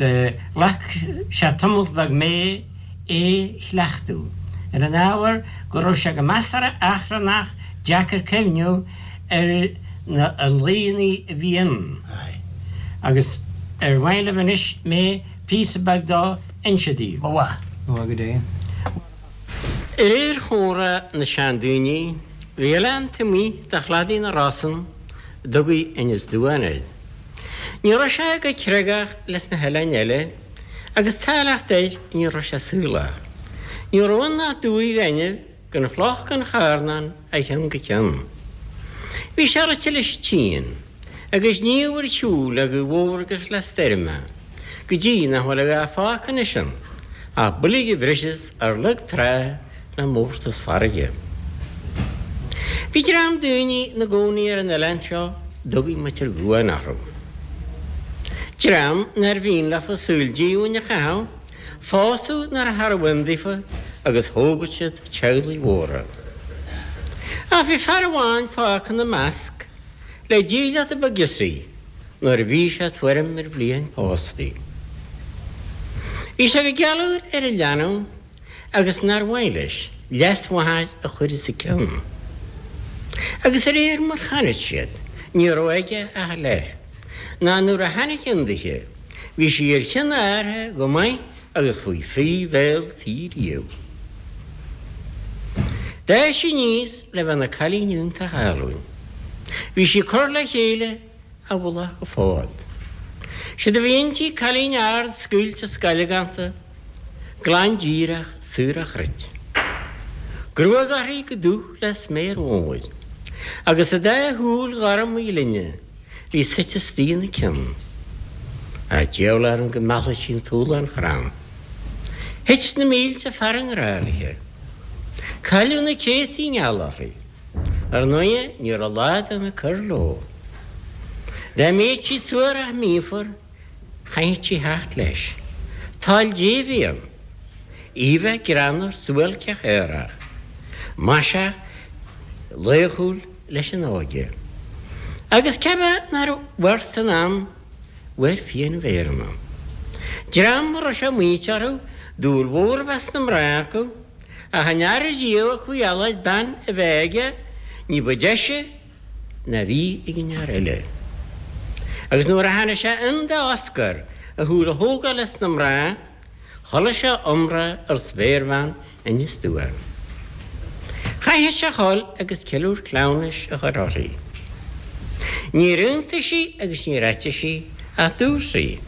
ghlac sé tamalt beag mé é chleachtadh, ar an ábhar go raibh sé go measartha achrannach deacair cuimhniú ar na laoideanna a bhí ann. Agus ar mhaith libh anois mé píosa beag dó inse daoibh? Ba mhaith. Ba mhaith go deimhin. De réir chomhrá na seandaoine, bhí oileán taobh amuigh de chladaí na Rosann a dtugaí Inis Duáin air. Ní raibh sé go creagach leis na hoileáin eile agus táilleacht air ní raibh sé saolach. Ní raibh ann ach dumhaigh ghainimh gan chloch gan charn ann ó cheann go ceann. Bhí sé rite leis an tsíon, agus sníomh ar shiúl le gaoth mhór agus le stoirm é, go dtí nach bhfuil a dhath fágtha anois ann ach boilg a bhriseas ar lag trá le mórtas farraige. Bhí dream daoine ina gcónaí ar an oileán seo a dtugaí Muintir Dhuáin orthu. Dream nár mhian leofa saol díomhaoin a chaitheamh, Phósadh nuair charbh ann daofa agus thógadh siad teaghlaigh mhóra. Ach bhí fear amháin fágtha ina measc le dílleachta ba ghiosaí nuair a bhí sé tuairim ar bhliain pósta. Bhí sé go gealúr ar a leanbh agus nár mhaith leis leasmháthair a chur os a cionn. Agus de réir mar chonaic siad ní raibh aige ach a leith, ná nuair a tháinig ann dithe, Bhí sí ar chionn a athar go maith agus faoi phrí bhéal tí riamh. D'fhás sí aníos le bheith ina cailín iontach álainn. Bhí sí curtha le chéile ó mhullach go fód. Séard a bhí inti cailín ard scaoilte scailgánta, glan díreach saor ó chruit. Gruag uirthi chomh dubh le sméar mhór, agus a dá shúil ghorma ghlinne bhí suite istigh ina cionn. Ach diabhal orm go meallfadh sí an túlán chrann. Thit na mílte fear i ngrá léi. Cailleadh na céadtaí i ngeall uirthi. Ar ndóighe, ní raibh lá den ag cur leo. Dá mbíodh sí suarach míofar, chaithfeadh sí theacht leis. Toil Dé a bhí ann. Í a bheith greannmhar suáilceach aerach, maiseach, laochúil, leis an óige. Agus cé bith nár mhair san am, mhair Fiannaibh Éireann. Dream a raibh sé maíte orthu dúil mhór a bheith sna mná acu, ach an fhear riamh a chuaigh a lorg bean a bheith aige ní ba deise ná bhí ag an fhear eile. Agus nuair a tháinig sé ann d'Oscar a shúil a thógáil as na mná, Chuala sé iomrá ar spéirbhean Inis Duáin. Chaithfeadh sé a dhul agus ceiliúr cleamhnais a chur uirthi. Níor aontaigh sí agus níor eitigh sí ach dúirt sí,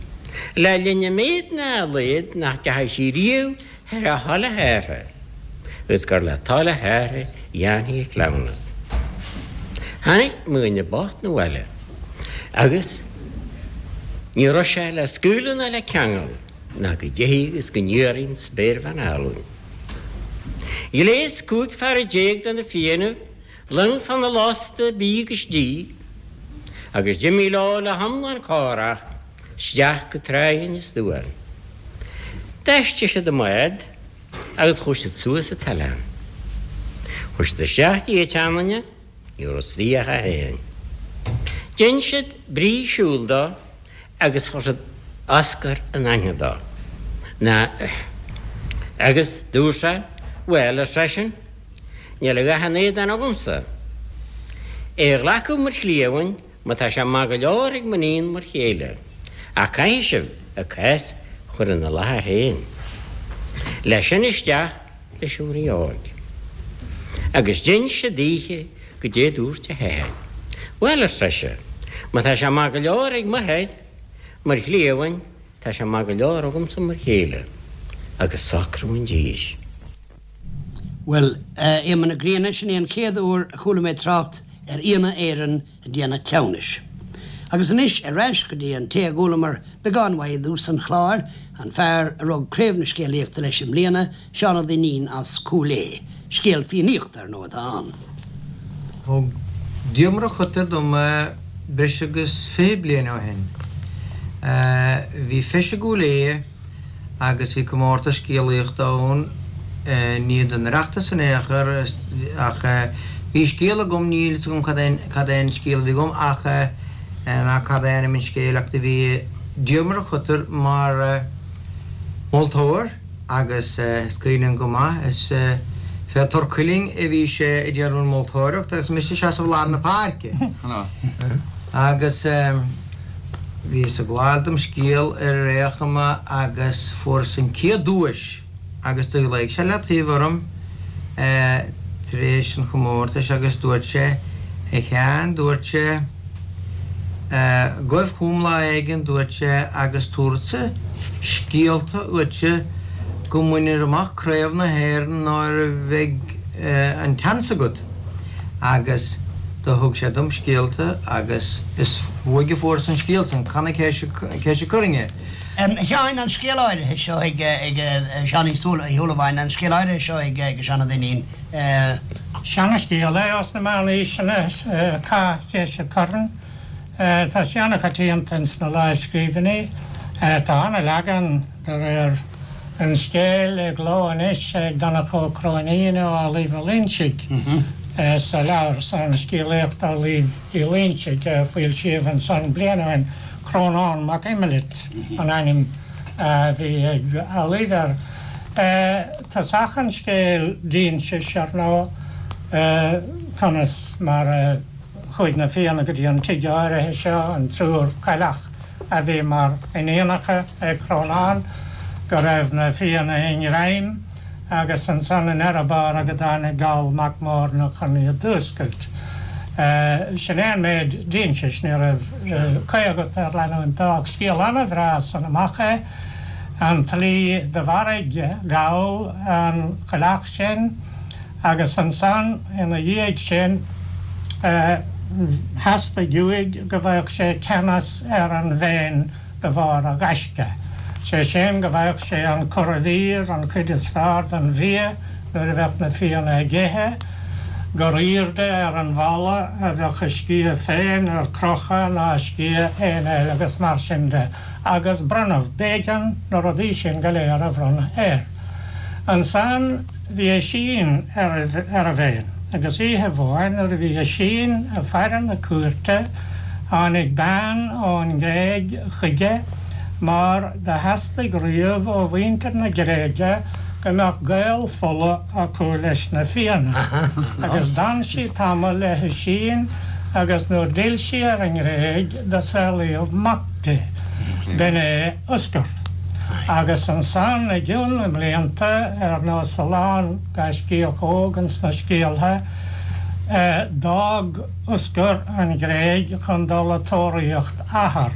le linn a méad ná a laghad nach dteachaidh sí riamh thar a thoil a hathar agus gur le toil a hathar a dhéanfaí an cleamhnas. Tháinig mo dhuine bocht 'na bhaile agus ní raibh sé le scaoileadh ná le ceangal. ná go dtéidh agus go n-iarraidh an spéirbhean álainn. Ghléas 15 fear de na Fiannaibh long fána lasta bídh agus dí, agus d'imigh leo le hiomlán córach isteach go tráigh Inis Duáin. D'fheistigh siad a mbád agus chuaigh siad suas an t-oileán. Chuaigh siad isteach dtí an tseanduine, ní raibh istigh ach é féin. Dhein siad brí siúil dó agus chuir siad Oscar in aithne dó. Ná agus dúirt sé, Bhuel, ar seisean, níl a dhath in éadan agamsa. É a ghlacadh mar chliamhain má tá sé maith go leor ag m'iníon mar chéile, ach caithfidh sibh a cás a chur ina láthair féin. Leis sin isteach leis an Rí óg. Agus d'inis sé daoithe goidé dúirt a hathair. Bhuel, ar sise, má tá sé maith go leor ag m'athair mar chliamhain, tá sé maith go leor agamsa mar chéile. Agus socrú an dís. Bhuel, a Éamoinn na Grianna, sin é an chéad uair a chuala mé trácht ar Fhianna Éireann ag déanamh cleamhnais. Agus anois ar ais go dtí an té a gcualamar beagán uaidh i dtús an chláir, an fear a rug Craobh na Scéalaíochta leis i mbliana, Seán Ó Duinnín as Cúil Aodha. Scéal Fiannaíochta, ar ndóigh, atá ann. Thug Diarmuid Ó Coitir dom é breis agus 20 bliain ó shin. Bhí feis i gCúil Aodha agus bhí comórtas scéalaíochta ann, ní don Oireachtas in aon chor ach bhí scéal agam, níl fhios agam cad é cad é an scéal a bhí agam ach ná cad é ainm an scéil ach do bhí Diarmuid Ó Coitir mar mholtóir agus is cuimhin liom go maith is fé Tor Cuilinn a bhí sé ag déanamh an mholtóireacht agus mise ag seasamh i lár na páirce agus. Bhíos ag gabháil dom scéal ar aon chuma agus fuaireas an chéad duais agus do ghlaoigh sé le taobh orm tar éis an chomórtais agus dúirt sé, A Sheáin, dúirt sé, gabh chugam lá éigin, dúirt sé, agus tabharfadsa scéalta dhuitse go mbainfir amach Craobh na hÉireann nuair a bheidh an tseans agat. Agus do thug sé dom scéalta agus is uaidh a fuaireas an scéal san, Cath na Ceise Coirinne. A Sheáin, an scéal áirithe seo ag Seán Uí Shúilleabháin, an scéal áirithe seo ag Seán Ó Duinnín. Seana-scéal é ós na meánaoiseanna, Cath Cheise Corann. Tá sé ana-choitianta ins na lámhscríbhinní. Tá ana-leagan de réir an scéil i gcló anois ag Donncha Ó Cróinín ó Amhlaoibh Ó Loingsigh sa leabhar san, Scéalaíocht Amhlaoibh Uí Loingsigh, a foilsíodh ansan bliain ó shin. Crónán Mac Imlight an ainm a bhí ag Amhlaoibh air. Tosach an scéil d'insis, ar ndóigh, conas mar a chuaigh na Fianna go dtí an tigh áirithe seo, an triúr cailleach a bhí mar iníonacha ag Crónán, go raibh na Fianna i ngreim agus ansan i ndeireadh báire go dtáinig Goll Mac Móirne chun iad d'fhuascailt. Sin é an méid d'insis, ní raibh caoi agat ar leanúint dó ach scéal ana-bhreá san amach é, an tslí do mharaigh Goll an chailleach sin. Agus ansan ina dhiaidh sin theastaigh uaidh go bhfaigheadh sé ceannas ar an bhFéinn de bharr a ghaisce, sé sin go bhfaigheadh sé an curadh mhír, an chuid is fearr den bhia nuair a bheadh na Fianna ag ithe, gur aoirde ar an bhfalla a bheadh a sciath féin ar crochadh ná sciath éinne eile agus mar sin de. Agus bronnadh, b'éigean na rudaí sin go léir a bhronnadh air. Ansan. Bhí Oisín ar an bhFéinn, agus oíche amháin nuair a bhí Oisín ag faire na cúirte tháinig bean ón nGréig chuige mar do theastaigh riamh ó mhuintir na Gréige go mbeadh gaol fola acu leis na Fianna. Agus d'fhan sí tamall le hOisín agus nuair d'fhill sí ar an nGréig do saolaíodh mac di. B'in é Oscar. Agus ansan i gcionn na mblianta, ar nós a lán gaiscíoch óg ins na scéaltha, d'fhág Oscar an Ghréig chun dul a tóraíocht athar,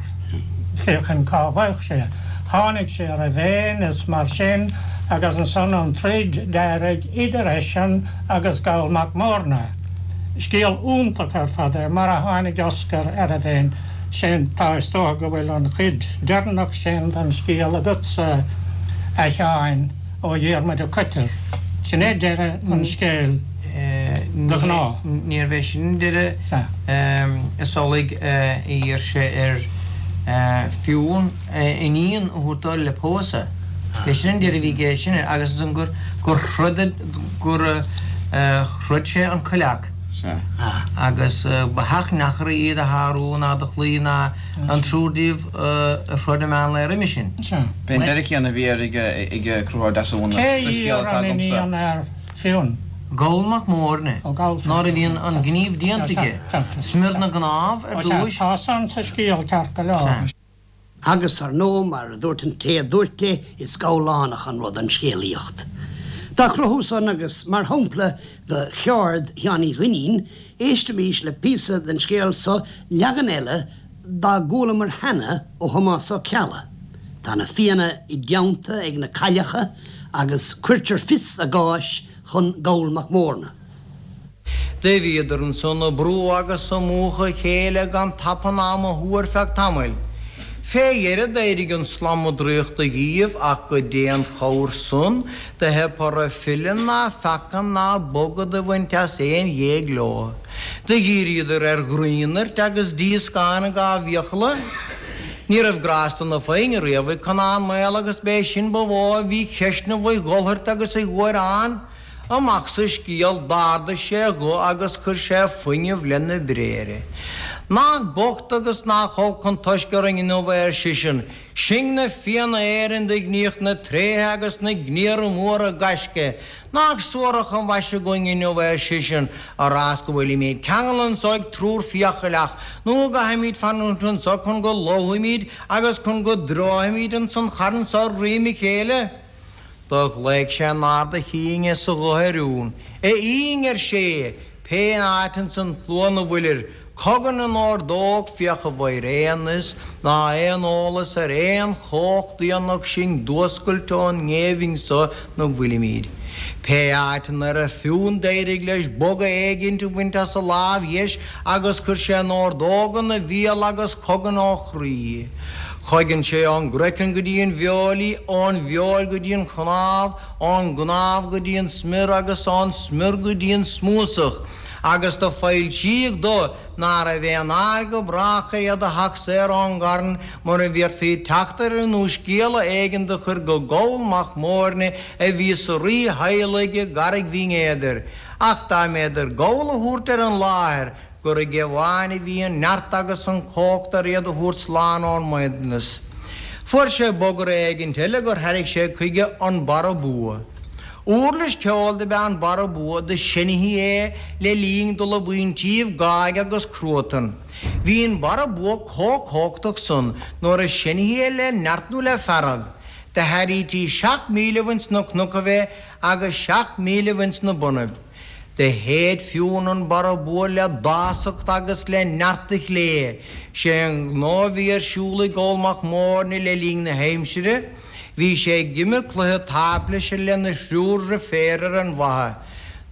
féachaint cá bhfaigheadh sé. Tháinig sé ar an bhFéinn is mar sin agus ansan an troid d'éirigh idir eisean agus Goll Mac Móirne. Scéal iontach ar fad é, mar a tháinig Oscar ar an bhFéinn. Sin, tá, is dócha go bhfuil an chuid deireanach sin den scéal agatsa, a Sheáin, ó Dhiarmuid Ó Coitir. Sin é deireadh an scéil de ghnáth. Níorbh é sin an deireadh. Is amhlaidh a d'iarr sé ar Fionn a iníon a thabhairt dó le pósadh. B'é sin an deireadh a bhí aige sin air agus ansan gur throid gur throid sé an coileach. Sea. Agus ba theach neachair iad a shárú ná do chloí ná an triúr díobh a throid i meán lae roimhe sin. Sea. B'é an deireadh céanna a bhí air ag Conchúr Deasúna Cé sa scéal iarr atá an agamsa. iníon ar Fionn? Goll Mac Móirne, Ó Goll, sea. nuair a bhí an gníomh déanta aige, smior na gcnámh ar Ó sea, dtúis. tá san sa scéal ceart go leor. Sea. Agus, ar ndóigh, mar a dúirt an té a dúirt é, is gabhlánach an rud an scéalaíocht. Dá chruthú san, agus mar shampla de cheird Sheáin Uí Dhuinnín, éistimís le píosa den scéal so, leagan eile dá gcualamar cheana ó Thomás Ó Ceallaigh. Tá na Fianna i dteannta ag na cailleacha agus cuirtear fios a gcáis. chun Goll Mac Mórna. Do bhíodar ansan a brú agus a múchadh a chéile gan tapann ama thú ar feadh tamaill. Fé dheireadh d'éirigh an slama draíochta dhíobh ach goidé an chabhair san do theip orthu filleadh ná feacadh ná bogadh do bhaint as aon ghéag leo. Do dhíríodar ar ghraonairt agus díoscán dhá bhfiacla. Ní raibh grásta na foighne riamh ag Conán Maol agus b'é sin ba mhó a bhí cheistneamh a dhulthairt agus a ghuaireán. Amach sa scéal, d'ardaigh sé a ghuth agus chuir sé fuinneamh lena bhréithre. Nach bocht agus nach olc an toisc orainn inniu é, ar seisean. Sinn na Fianna Éireann do ghníodh na tréithe agus na gníomhartha móra gaisce. Nach suarach an mhaise againn inniu é, ar seisean, a rás go bhfuilimíd ceangail anso ag triúr fiacailleach, nó go gcaithfimíd fanúint anso chun go lobhfaimíd agus chun go dtreofaimíd ins an charn so ar dhroim a chéile. Do ghlaoigh sé in ard a chinn is a ghutha ar Fhionn. A Fhinn, ar sé, pé áit ins an tslua 'na bhfuilir, cogain in ordóg, féach an bhfaighir aon fhios ná aon eolas ar aon chomhacht fhiannach sinn d'fhuascailt ón ngéibhinn so 'na bhfuilimíd. Pé áit 'na raibh Fionn d'éirigh leis boga éigint a bhaint as a lámh dheis agus chuir sé an ordóg ina bhéal agus chogain ó chroí. Chogain sé ón gcraiceann go dtí an bhfeoil í, ón bhfeoil go dtí an chnámh, ón gcnámh go dtí an smior agus ón smior go dtí an smúsach, agus do foilsíodh dó ná raibh aon fháil go brách ar iad a theacht saor ón gcarn mura bhféadfaí teacht orthu nó scéala éigin do chur go Goll Mac Móirne a bhí sa rítheaghlach i gCarraig Bhinn Éadair. Ach dá mb'fhéidir Goll a thabhairt ar an láthair, gur aige amháin a bhí an neart agus an chumhacht ar iad a thabhairt slán ón mbraighdeanas. Fuair sé bogearra éigint eile gur thairrig sé chuige an Barra Bua. Uirlis ceoil do b'ea an Barra Bua do seinnthí é le linn dul i bpointíbh gáig agus cruatan. Bhí an Barra Bua comh cumhachtach san nuair a seinnthí é le neart nó le fearg. Do thairrítí seacht mílibh ins na cnocaibh é agus seacht mílibh ins na bonnaibh. Do shéid Fionn an Barra Bua le dásacht agus le neart a chlé. Sé an gnó a bhí ar siúl ag Goll Mac Móirne le linn na haimsire, bhí sé ag imirt cluiche táiplise lena thriúr dhriféar ar an bhfaiche.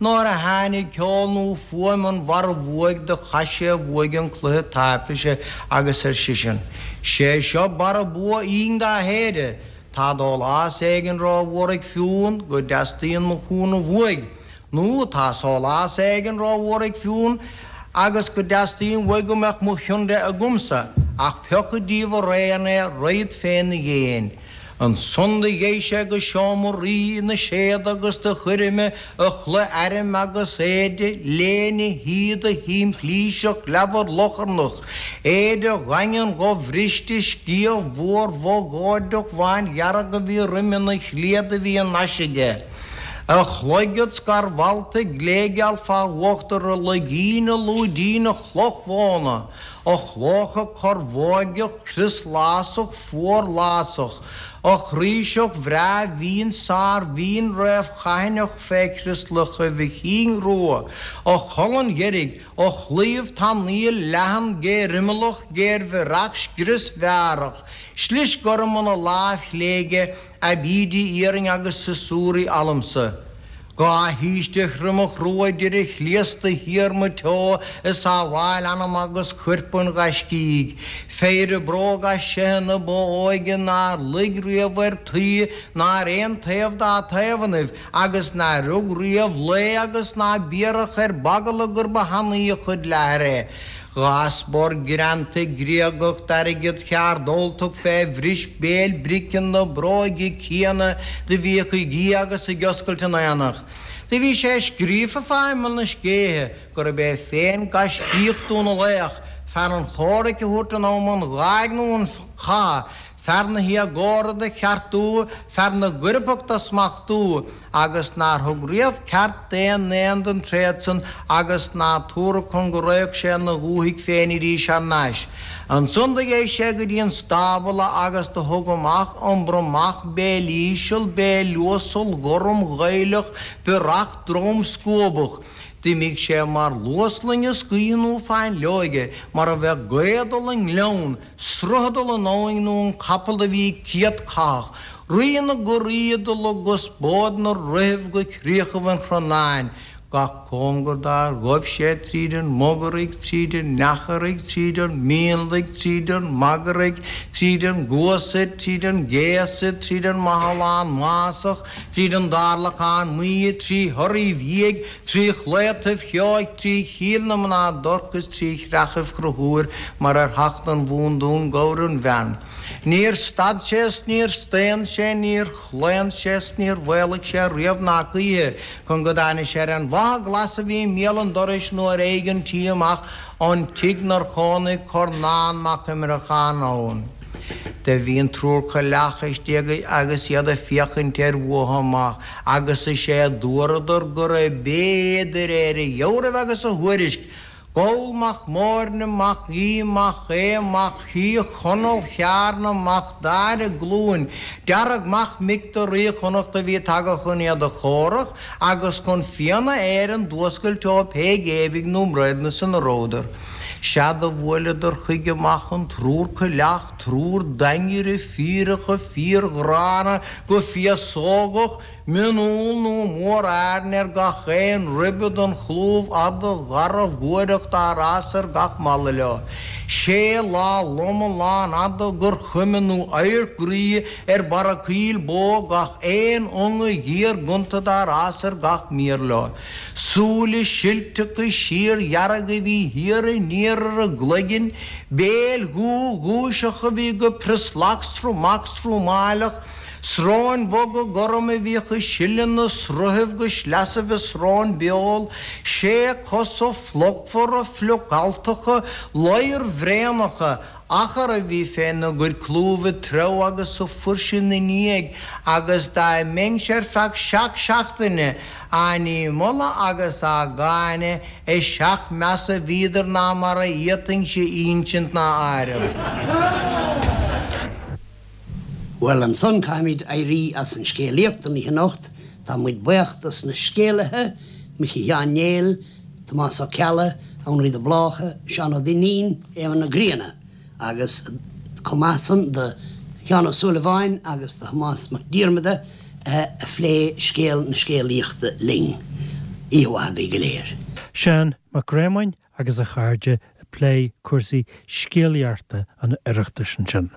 Nuair a tháinig ceol nó fuaim an bharra bhuaidh do chaith sé uaidh an cluiche táiplise agus ar seisean, Sé seo Barra Bua Fhinn dá shéideadh. Tá dólás éigin ró-mhór ag Fionn go dteastaíonn mo chúnamh uaidh, nó tá sólás éigin ró-mhór ag Fionn agus go dteastaíonn uaidh go mbeadh mo chion de agamsa, ach pioca díobh araon é, raghad féna dhéin. Ansan do gheibh sé go seomra rí na séad agus do chuir uime a chulaith airm agus éide léine shíoda shimplíseach leamhar locharnach, éide dhaingean dhobhriste, sciath mhór bhogóideach bhándhearg a bhí roime 'na shlaoda a bhí in ais aige, a chloigead scarbhalta gléigeal fá uachtar a loigín a lúidín a chloch mhóna, a chlóca corrbhóigeach crioslásach fuarlásach, a chraoiseach bhreá mhín sármhín réamhchaithineach fé chrioslachaibh a chinn rua, a cholainn dheirg, a chlaíomh tanaíl leathan géarimeallach géarbhiorach scriosmhearach, slis gorm ina láimh chlé aige, aibídí iarainn agus siosúraí almsa. Dhá shaoiste thriomach rua idir a shlios de shíor maigh teo ag sábháil anam agus choirp an ghaiscígh. Péire bróg as seithe na ba óige nár luigh riamh ar tuí ná ar aon taobh dá taobhannaibh agus nár rug riamh lao agus ná biorach ar b'eagla gur ba thanaí a chuid leathair é. Dhá spor greanta Gréagach d'airgead cheard Ultach fé bhris béil brice na bróige céanna do bhíodh ag ithe agus ag oscailt in aonach. Do bhí sé scríofa fá imeall na scéithe gurb é féin gaiscíoch Dún na Laoch, fear an chomhraic a thabhairt in am an gháig nó an chatha, fear na héagóra do cheartú, fear na gcoirpeach do smachtú, agus nár thug riamh ceart d'aon aon den tréad san agus ná tabharfadh chun go raghadh sé 'na dhúthaigh féin arís thar n-ais. Ansan do gheibh sé go dtí an stábla agus do thug amach an bromach béilíseal béiluasal gorm gaoileach biorach dromscuabach. D'imigh sé mar luas loingeas gaoithe nó fáinleoige, mar a bheadh gaoth ag dul i ngleann, sruth ag dul in abhainn nó an capall do bhí céadchathach, rí na gcuraí ag dul i gconspóid na rithibh go críochaibh an Chronáin, gach cóngar dár ghaibh sé tríd an mBogaraigh, tríd an Eacharaigh, tríd an Mhionlaigh, tríd an Magaraigh, tríd an gCuasaid, tríd an gCéasaid, tríd an Mathalán Másach, tríd an dTarlacán Maí, trí Thoraí Bhiaigh, trí Chlaotaibh Sheoigh, trí Chill na mná Dorc is trí Chreachaibh Chrochúir mar ar theacht don Bhundún Gabhar an Bhean. Níor stad sé is níor staon sé, níor chlaon sé is níor mhaolaigh sé riamh ná choíche chun go dtáinig sé ar an bhFaiche Ghlas a bhí i mbéal an dorais nó ar aghaidh an tí amach ón tigh 'nar chónaigh Cornán Mac Imreacháin ann. Do bhí an triúr coileach istigh agus iad ag féachaint air uathu amach agus is é a dúradar gurab é de réir a dheabhraimh agus a thuairisc, Goll mac Móirne mac Aoidh mac Aodha mac Uí Chonaill Chearna mac Daire Glúin Dearg mac mic do Rí Chonnacht a bhí tagtha chun iad a chomhrac agus chun Fianna Éireann d'fhuascailt ó pé géibhidh nó mbraighdeanas ina rabhadar. Sea do bhuaileadar chuige amach an triúr coileach, triúr daingeire fíreacha fíorghránna go féasógach, Mionúr nó mór-airn ar gach aon ribe den chlúmh fhada gharbh ghuaireach dár fhás ar gach mala leo. Sé lá loma lánfhada gur chuma nó adharc groí ar barra coill bó gach aon ionga ghéar ghonta dár fhás ar gach mír leo. Súile silteacha síordhearga a bhí thiar aniar ar a gcloiginn, béil dhubha ghuaiseacha a bhí go prioslach sromach srómáileach, Sróin bhoga gorma a bhíodh ag sileadh na sruthaibh go sleasaibh a srón beul, sé cosa fliuchmhara fliuch-alltacha, ladhar-bhraonacha, achar a bhí fé n-a gcuid clúmh ag treabhadh agus ag fuirseadh 'na ndiaidh, agus dá mbeinnse ar feadh seacht seachtaine á ndímholadh agus á gcáineadh, is seacht measa a bhíodar ná mar a fhéadfainnse ínsint ná áireamh. Bhuel, ansan caithfimid éirí as an scéalaíocht don oíche anocht. Tá muid buíoch dos na scéalaithe, Micí Sheáin Néill, Tomás Ó Ceallaigh, Anraí de Bláca, Seán Ó Duinnín, Éamonn Ó Grianna agus chomh maith san do Sheán Ó Súilleabháin agus do Thomás Mac Diarmada a phléigh scéal na scéalaíochta linn. Oíche mhaith agaibh go léir. Seán Mac Réamoinn agus a chairde ag plé cúrsaí scéalaíochta an Oireachtais ansin.